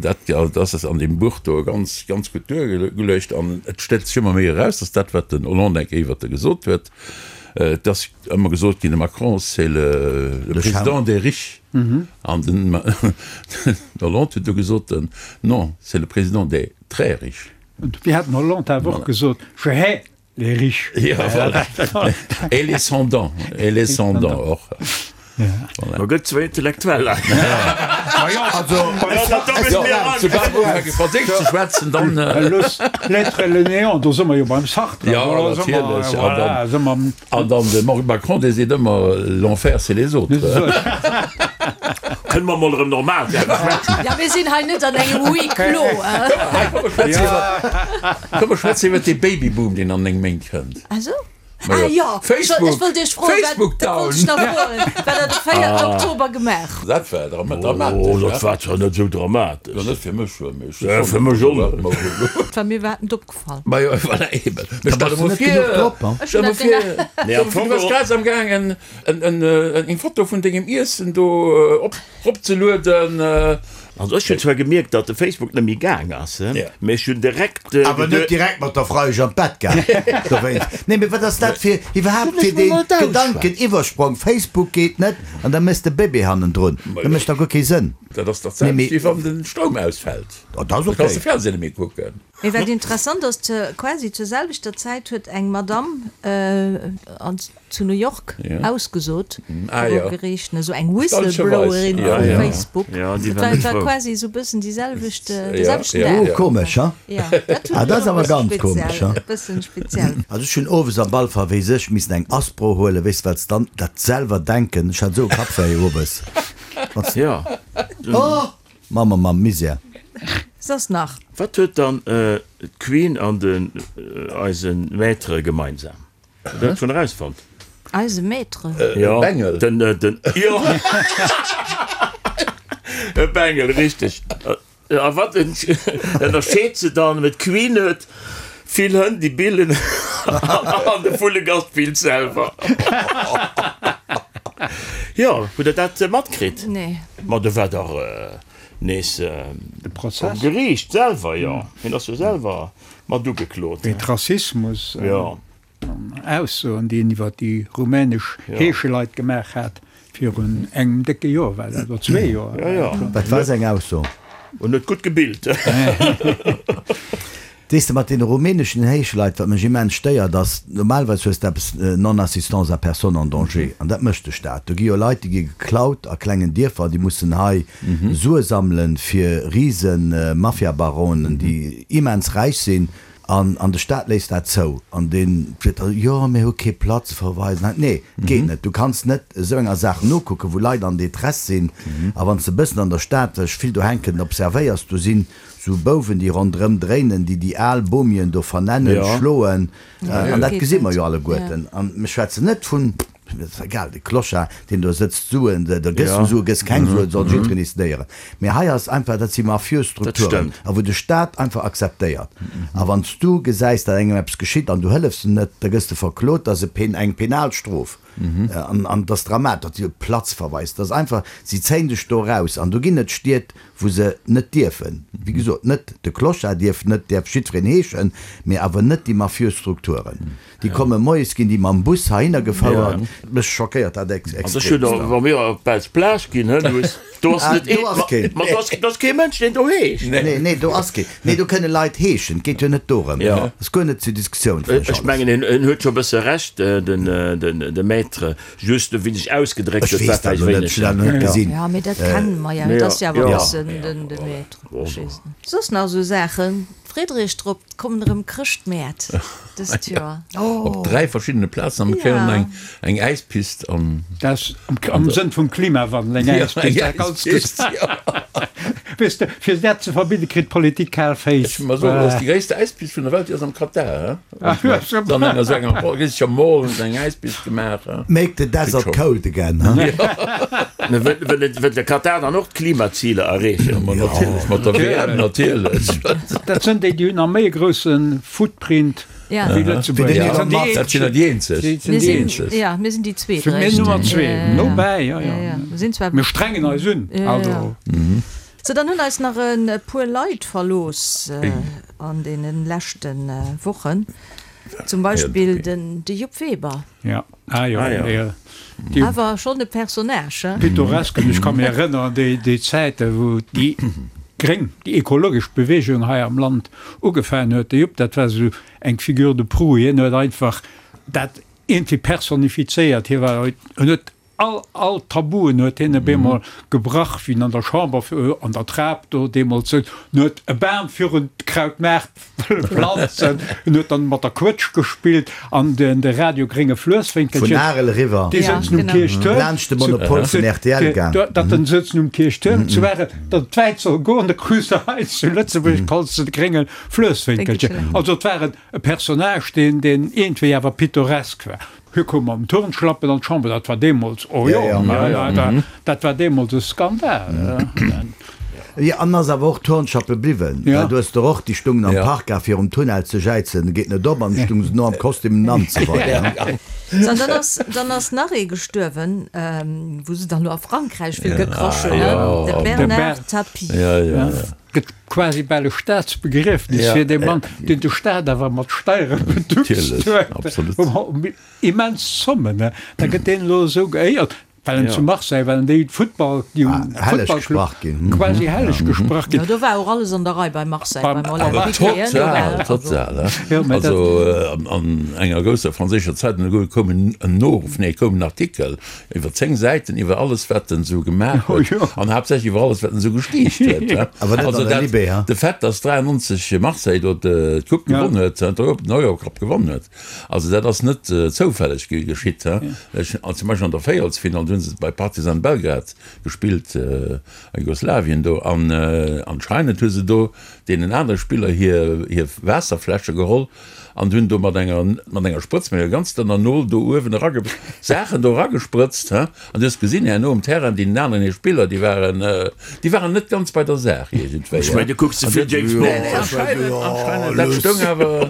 dat, dat ass an deem Buch do ganz, ganz gutt duergeluecht. An et stellt sech ëmmer méi eraus, dass dat, wat den Hollande eng Kéier iwwert e gesot huet, Et ass ëmmer gesot ginn, de Macron, c'est le président des riches. An den Hollande huet du gesot, non, c'est le président des très riches. An dofir hat den Hollande awer och gesot, je hais les riches. Ja, voilà. Et les sans-dents, et les sans-dents och. Ma gëtt zwou Intellektueller. Franséisch ze schwätzen, dann. L'être et le néant, do si mer jo beim Sartre. Jo, natierlech. An dann de Macron, dee seet ëmmer, l'enfer c'est les autres. Kënne mer mol erëm normal schwätzen? Ja, mir sinn hei net an engem Huis clos. Komm, mer schwätzen iwwer dee Babyboom, deen an 9 Méint kënnt. Ah sou? Ah jo, Facebook, ech wollt Iech froen, Facebook wat, dat wollt ech nach froen, wat der de 4. Oktober gemaach hutt. Dat war dramatesch. Oh, dat war zwar net esou dramatesch. Jo, net fir mech, mee ech Ja, fir mech och net. War mir iwwerhaapt net opgefall. Ma jo, voilà, eben. Mee stell der mol net genuch vir, drop, hein? Ech stell hunn der mol dat vir, genau. Nee, stell am der mol vir, Fong du bass och. grad am gaangen en, en, eng Foto vun dengem Iessen do op, ropzelueden. Also ech hunn zwar gemierkt, datt de Facebook net méi gaang ass, mee ech hunn direkt Awer net direkt mat der Freiesch an d'Bett gaang dowéinst. Nee, mee wat ass dat fir iwwerhaapt fir dee Gedankeniwwersprong, Facebook geet net an da méchs de Bébé hannendrun, dat mécht dach guer kee Sënn. Dat ass dach d'selwecht wéi wann de Stroum ausfält, Oh, dat ass da kanns de okay. Fernseh net méi kucken. Mee wat interessant ass, quasi zur selwechter Zäit huet eng Madamm an zu New York ausgesot viru Geriicht, esou eng Whistleblowerin vu Facebook. Dat war quasi esou bëssen déi selwecht, de selwechten Dag. Oh, komesch, ha? Ah, dat ass awer ganz komesch, ha? E bëssen speziell. Also ech hunn owes am Ball verwees ech missen eng Aspro huelen, weess de, well s dann dat selwer denken, ech hat esou e Kappwéi owes. Oh! Mamm, Mamm, Misär. Soss nach? Wat huet dann d'Queen an den eise Maître gemeinsam? Hutt der dat schonn erausfonnt? Eise Maître? Jo, Bengel. Den, den, jo, e Bengel, richteg. A wat ënnerscheet se dann? D'Queen huet vill Hënn, déi billen, an de Vullegast billt selwer. Jo, hutt der dat matkritt? Nee. Ma do war dach nees um Geriicht selwer, jo. Hien ass jo selwer mat ugeklot. Wéint Rassismus. Jo. Aussoen, déi en iwwer déi rumänesch Heescheleit gemaach hat, virun engem décke Joer war dat, oder zwee Joer. Wat war seng Ausso? En huet gutt gebillt. Weess de, mat deene rumäneschen Heescheleit, wat mech immens stéiert, ass, normalerweis hues de eppes Non-assistance à personne en danger, an dat mécht de Staat. Do gi jo Leit, déi gi geklaut a klengen Dierfer, déi mussen hei Sue sammelen fir Risen-Mafiabaronen, déi immens räich sinn. An, an de Staat léisst dat zou. An deen seet da, jo, mir hu kee Platzverweis. Nee, et geet net. Du kanns net esou enger Saach nokucken, wou Leit an Détresse sinn. A wann s de e bëssen an der Stad, well ech vill do hänken, observéiers, do sinn esou Bouwen, déi ronderëm dréinen, déi déi al Bomien do vernennen, schloen. An dat gesi mer jo alleguerten. An mir schwätzen net vun. Et ass egal, de Clochard, deen do sëtzt, Suen, da gëss du Suen, gëss keng Suen, soll jiddwereen decidéieren. Mee hei ass einfach, dat si mafiös Strukturen, a wou de Staat einfach akzeptéiert. A wann s du gesäis, datt engem eppes geschitt an du hëllefs em net, da gëss de verklot, dat ass e pen, eng penal Strof. An an et ass dramatesch, datt si op Platzverweis, dat ass einfach, si zéien dech do eraus. An do ginn et Stied, wou se net dierfen, wéi gesot, net de Clochard dierf net, däerf jiddwereen heeschen, mee awer net déi mafiös Strukturen. Déi komme moies, ginn déi mam Bus heihinner gefouert. Mech schockéiert dat extremst. Wa mir op d'Belsch Plage ginn, hë Luss, do ass net ee, ma do ass, do ass kee Mënsch, deen do heescht. Nee, nee, do ass kee. Nee, do kënne Leit heeschen, et geet jo net dorëm. Ass guer net zur Diskussioun, fannen ech. Ech mengen, en huet scho e bësse Recht, den, den, de Maître, just wéi sech ausgedréckt huet, war Ech weess dat vläicht elo net, wéineg. ech hunn dat elo net gesinn. Jo, mee dat kenne mer jo, et ass jo awer e bëssen den, de Maître, verstees de. Soss nach esou Saachen? Friedrich drop, 't kommen erëm Chrëschtmäert dëst Joer. Op 3 verschiddene Plazen a mir kréien och eng eng Äispist an. Dat ass am Sënn vum Klimawandel, eng Äispist, dat ganz Äispist, jo. Weess de, fir dat ze verbidde kritt d'Politik kal Féiss. Ech muss soen, dat ass déi gréisste Äispist vun der Welt, déi ass am Katar, he? Dann eng esou enger riseger Mall hunn se eng Äispist gemaach, he? Make the desert cold again, he? Mä wëll de Katar dann och d'Klimaziler erreechen? Ma natierlech, mat der WM natierlech. Dat sënn déi, déi hunn nach méi e grousse Footprint wéi Lëtzebuerg. Dat sinn der déi eenzeg. Mir sinn, ja, mir sinn déi zweet. Mir Nummer zwee, nobäi, jo, jo. Mir strengen eis un, also. Sou, dann hunn eis nach e puer Leit verlooss an deene leschte Wochen. Zum Beispill den de Jupp Weber. Ja, ah jo, ah, jo. Awer schonn e Personnage, hein? Pittoresk, an ech ka mir erënneren, déi, déi Zäite wou déi gréng, déi ekologesch Bewegung hei am Land ugefaangen huet. De Jupp, dat war esou eng Figure de proue, hien huet einfach dat iergendwéi personifizéiert. Hie war, en huet All, all Tabuen huet hien op eemol gebrach, wéi en an der Chamber an der Trap do deemools souz. En huet e Bam virun d'Krautmaart wëlle planzen, en huet dann mat der Quëtsch gespillt an den, de Radio Grénge Fluesswénkelchen. Vun Arel eriwwer. Déi souzen um Kierchtuerm. Laanscht de Monopol vun rtl gaang. Datt en souzen um Kierchtuerm zu Arel, datt et wäit soll goen, da krus de hei zu Lëtzebuerg kanns de de Grénge Fluesswénkelchen. Also et war e Personnage, deen, deen iergendwéi awer pittoresk war. Hie koum mam Turnschlappen an d'Chamber, dat war deemools, oh jo, dat war deemools e Skandal. Jo, an ass awer och Turnschlappe bliwwen, well du hues der och, déi stungen am Park a virum Tunnel ze jäizen, geet net op, an du stung se no am Kostüm an esou weider. So, an dann ass, dann ass nach ee gestuerwen, wou se dann elo a Frankräich vill gekrasch hunn, de Bernard Tapie. Gëtt quasi bal e Staatsbegriefnis fir dee Mann, deen de Staat awer mat Steiere beduckst huet. Immens Zommen, da gëtt deen elo esou geéiert, well en zu Marseille, well en déi Futtball, déi um Futtballclub quasi helleg gesprach ginn. Jo, do war och alles an der Rei bei Marseille, beim Olympique Lyonnais. Total, total. Also an enger grousser franséischer Zeitung koum en Noruff, nee, koum en Artikel Iwwer 10 Säiten iwwer alles wat en sou gemaach huet an haaptsächlech iwwer alles wat en sou gestiicht huet. Awer net an der Libé, ha? De Fait dass 93 Marseille do d'Coupe gewonn huet, den Eurocup gewonn huet, also dat ass net zoufälleg geschitt. Zum Beispill an der Véierelsfinall, do hu se bei Partizan Belgrad gespillt, a Jugoslawien do, an anscheinend hu se do. deenen anere Spiller hir hir Waasserfläsche geholl an hunn do mat enger mat enger Sprëtz, mat enger ganz dënner Nol do uewen erage Saachen do eragesprëtzt, he. An du hues gesinn herno um Terrain, deenen aneren hir Spiller, déi waren déi waren net ganz bei der Saach iergendwéi, Ech mengen, du kucks ze vill James Bond. Nee, nee, anscheinend, anscheinend, dat stoung awer,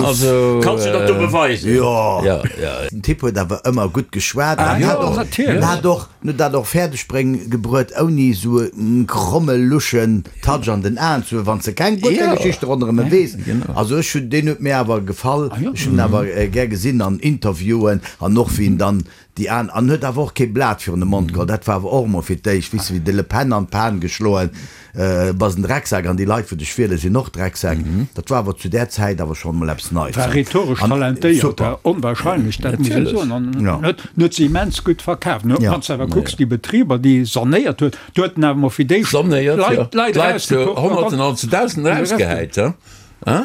also. Kanns du dat do beweisen? Jo. Ja, ja. Den Typ huet awer ëmmer gutt geschwat an jo, hat och, natierlech. hat och, huet dat och fäerdeg bréng gebruet ouni esou e kromme luschen Touch an den Aen ze hunn, wann s de keng gutt Ja. Geschichte ronderëm e weess. Genau. Also ech hunn, deen huet mir awer gefall, Ah jo. ech hunn en awer gär gesinn an Interviewen an och wéi en dann déi an, an huet awer och kee Blat virun de Mond geholl. Dat war awer och emol fir d'éischt, weess de, wéi de Le Pen an d'Pan geschloen, bass en Drecksak an déi Leit wou dech wiele sinn och Drecksäck. Dat war awer zu där Zäit awer schonn emol eppes Neits. War rhetoresch An talentéiert, super. onwahrscheinlech, dat muss ee soen. An Ja. huet huet se immens gutt verkaaft. Ja. Wann s de awer kucks, déi Betriber, déi e sanéiert huet, do huet en awer emol fir d'éischt Sanéiert, jo. Leit, Leit D'Leit zu erausgekuckt an dann Honnerten an zu Dausenden erausgehäit, he?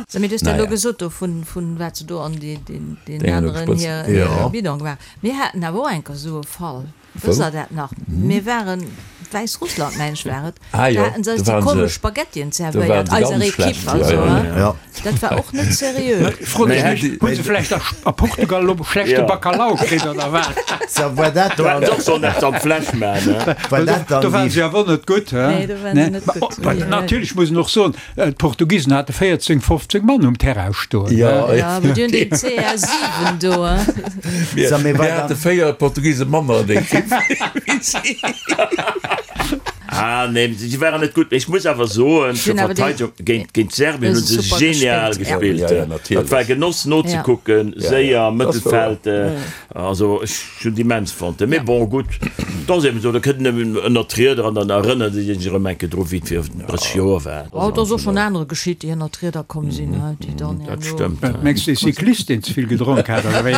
So, mee du hues dat elo Naja. gesot do vun, vun wat se do an déi, deen, deen Déngen do aneren gesprëtzt. hir, Ja. hir Bidon gemaach. Mir haten awer och eng Kéier esou e Fall. Wësst der dat nach? Mir waren, Wäissrussland meng ech war et, Ah do jo, haten se eis do déi waren se, komesch Spaghettien do waren zerwéiert, se eiser ganz Equipe schlecht, jo, also, jo, hein. jo. Ja. Dat war och net seriö. Fro dech mech, hu se vläicht a a Portugal elo schlechte Ja. Bacalhau kritt oder wat? So, war dat Do hätten dann, se och sollen eppes an d'Fläsch maachen, ne? war dat Do dann waren déi, se awer net gutt, hein? Nee, do waren se net Ma, gutt. oh, ma natierlech muss een och soen, D'Portugisen hate 14, 15 Mann um Terrain stoen. Ja, Ja, awer déi hunn deen CR7 do, hein. Mir, So, mee mir war hate dann, 4 Portugise manner an der Ekipp wéi si. Ah nee, si waren net gutt. Mee ech muss awer soen, Si zur hunn awer déi, Verteidigung, géint, géint Serbien hu hu se se super genial gespillt, ja. gespillt. Ja, ja, Dat war natierlech. Genoss Ja. nozekucken, Ja, ja, séier, dat ass wouer. Mëttelfeld. Also ech hunn et immens fonnt. Mee Ja. bon, gutt, et ass eben esou, da kënnt en eben ënnert d'Rieder an dann erënnert ee sech erëm eng Kéier dru wéi et vir 30 Joer war. Oh, et ass och schonn anere geschitt, déi ënnert d'Rieder komm sinn, hein, déi dann Dat herno. stëmmt. Wat mengs de, Cyclist, deen ze vill gedronk hat, oder wéi?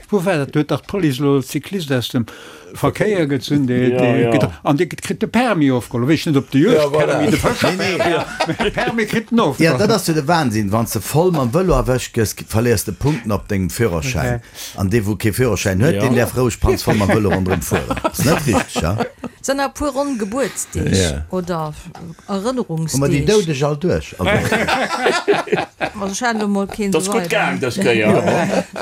Wou war dat? Do huet dach d'Police elo e Cyclist aus dem Verkéier gezunn, dee, Ja, dee ja. gedr-, an dee kritt de Permis ofgeholl. Weess net, ob de Ja, Juegdpermis, voilà. de Fëscherpermis, mee de Permis kritt en ja, ofgeholl. dat ass jo de Wahnsinn, wann s de voll mam Vëlo erwëscht gëss, verléiers de Punkten op dengem Führerschäin. An dee wou kee Führerschäin huet, deen däerf roueg panzvoll mam Vëlo ronderëm fueren. Ass net richteg, ha? Sinn nach e puer ronn Gebuertsdeeg oder Hu mer déi Erënnerungsdeeg. Doudeg all duerch? Also. Also ech hat elo mol keen Dat ass esou gutt weider. gaang dës Kéier.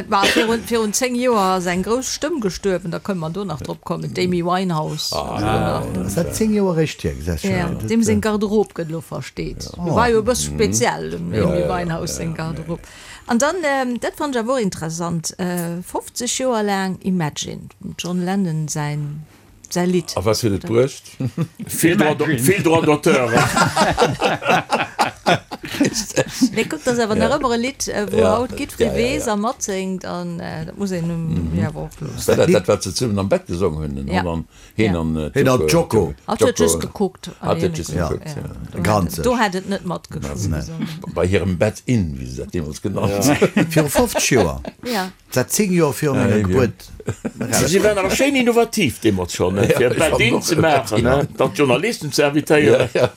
Ma virun, virun 10 Joer ass eng grouss Stëmm gestuerwen, da kënne mer do nach drop kommen, d'Amy Winehouse. Ass dat 10 Joer eréischt hier? Gesäis scho. Ja, deem seng Garderobe gëtt elo versteet. War jo e bësse speziell, dem Amy Winehouse seng Garderobe. An dann, dat fannen ech awer och interessant, 50 Joer laang Imagine, dem John Lennon säin säi Lidd. A was huet et bruecht? Vill Droit, vill Droits d'auteur. Mee kuck, dat ass awer nach ëmmer e Lidd, wou Ja, haut jiddweree ja, ja, weess ja. a matséngt an dat muss een jo awer och loossen. War dat dat, wat se zesummen am Bett gesongen hunn, den Ja. Holland? Heen an Heen an Joko. Hatt huet just gekuckt. Hatt huet just gekuckt, ja. Do hätt, do hätt et net matgesongen. Bei hirem Bed-In, wéi se dat deemools genannt hunn. Viru 50 Joer. Ja. Dat 10 Joer viru menger Gebuert eraus. Si waren awer schéin innovativ deemools schonn, fir e Bed-In ze maachen, dann d'Journalisten ze invitéieren. Ja.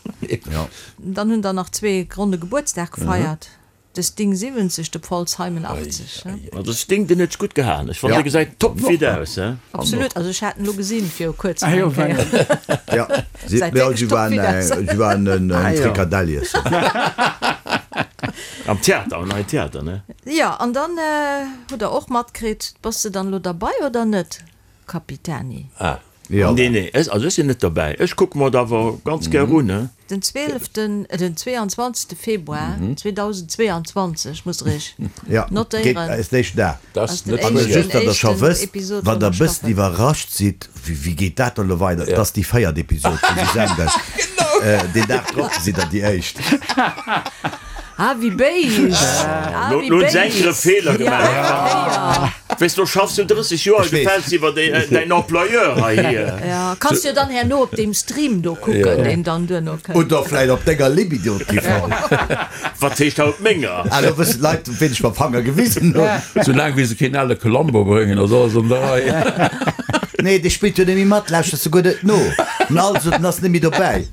Dann hunn der nach zwee ronne Gebuertsdag gefeiert. De Sting 70, de Paul Simon 80. Ma de Sting, deen huet sech gutt gehaen. Ech fannen, dee gesäit top fit aus, he? Absolut, also ech hat en elo gesinn viru kuerzem Ah jo, eng Kéier. Ja, si, Säit ja, wierklech si top waren, fit aus. si waren en Ah jo. Frikadell iessen. Am Theater, am neien Theater, ne? Jo, an dann hutt der och matkritt, bass de dann elo derbei oder net, Capitani? Ah. Jo. Nee, nee, ech, also ech sinn net derbäi. Ech kucke mer et awer ganz gär un, he? Den 12., den 22. Februar 2022, musst der iech Ja, geet notéieren. eis d'éischten Dag. Dat Ass ass den net An éischten, just, datt der scho éischten wësst, Episod wann vun der der e bëssen Staffel. iwwerrascht sidd, wéi, wéi geet dat dann elo weider, et ass déi véiert Episod, wou se senden. Deen Dag drop sidd der déi éischt. Ah, wéi béis! Ah, Lo wéi lo hunn se eng Kéier e béis! Feeler Ja, gemaach. ja. Weess, do schaffs du 30 Joer, Ech weess. gefäls iwwer däin Employeur hei hier. Ja, kanns jo dann herno op deem Stream do kucken, deen dann duerno kënnt. Oder vläit op denger Libido TV. Wat heescht haut menger? Ah, lo wëssen d'Leit, op ween ech mam Fanger gewisen hunn. Soulaang wéi se keen ale Columbo bréngen, ass alles an der Rei. Nee, dee spillt jo net méi mat, lauschters de guer net no. An also, den ass net méi dobäi.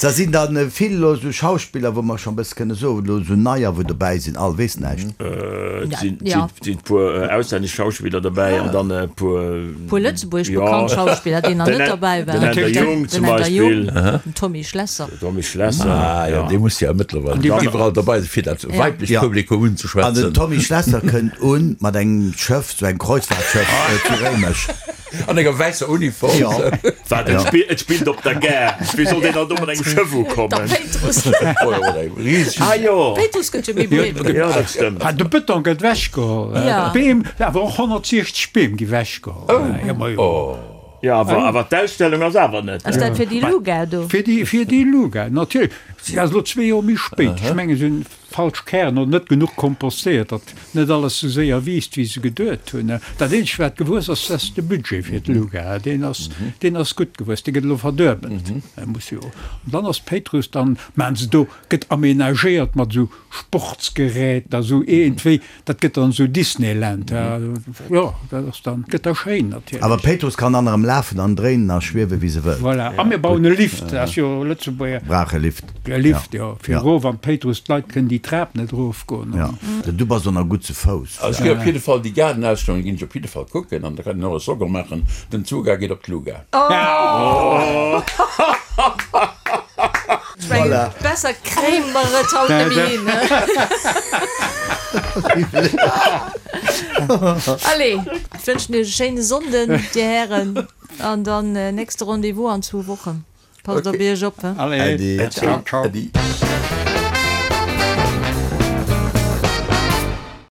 Da sinn dann vill elo esou Schauspiller, wou mer schonn e bësse kënne soen, elo esou neier, wou dobäi sinn, all weess näischt. Et sinn e puer auslännesch Schauspiller derbäi an dann e puer. Puer lëtzebuergesch bekannt Schauspiller, déi nach net derbäi waren. Den Änder Jung zum Beispill. Den Tommy Schlesser. Den Tommy Schlesser. Ah jo, dee muss jo mëttlerweil iwwerall derbei sinn, fir dat weiblecht Publikum unzeschwätzen. An den Tommy Schlesser kënnt un mat engem Schëff, sou engem Kreuzfahrtschëff zu Réimech. An enger wäisser Uniform. Jo. Wat, et spillt, et spillt op der Gare. Wéi soll deen dann do mat engem Schëff ukommen? Der Péitruss. Ah jo. Péitruss gëtt jo méi breet. Jo, dat stëmmt. Ah, de Bëtong gëtt wechgeholl. Ja. D'Beem, awer och 160 Beem gi wechgeholl. Oh. Ja, ma jo. Jo, awer, awer d'Ausstellung ass awer net. Ass dat fir déi Luga do? Fir déi, fir déi Luga, natierlech. Si ass elo zwee Joer méi spéit. Ech mengen, si hunn falsch Kären oder net genuch kompostéiert, datt net alles sou séier wiisst, wéi se geduet hunn. Dat eenzegt, wat gewuess ass, dat ass de Budget fir d'Luga. Deen ass, deen ass gutt gewuess, dee gëtt elo verduebelt. E muss jo. An dann ass d'Péitruss, dann maachen se do, gëtt aménagéiert mat esou Sportsgeräter, esou iergendwéi, Dat gëtt dann esou Disneyland, jo, dat ass dann, gëtt da schéin natierlech. Awer Péitruss kann dann erëm lafen an dréinen a schwiewe wéi se wëllt. Voilà, a mir bauen e Lift, dat ass jo Lëtzebuerger. Brauch e Lift. E Lift, jo, fir erof an d'Péitruss, d'Leit kënnen déi Trap net erofgoen. Jo, du bass och nach gutt zu Fouss. Also ech ginn op jidde Fall déi Gaardenausstellung ginn ech op jidde Fall kucken an da kann een och e Slogan maachen, Den Zuga geet op d'Luga. Ech mengen, besser kréie mer et haut net méi hin. Allez, ech wënschen iech e schéine Sonnden, dir Hären, an dann nächste Rendez-vous an zwou Wochen. Passt op iech op, he? Allez, ciao, ciao. Äddi.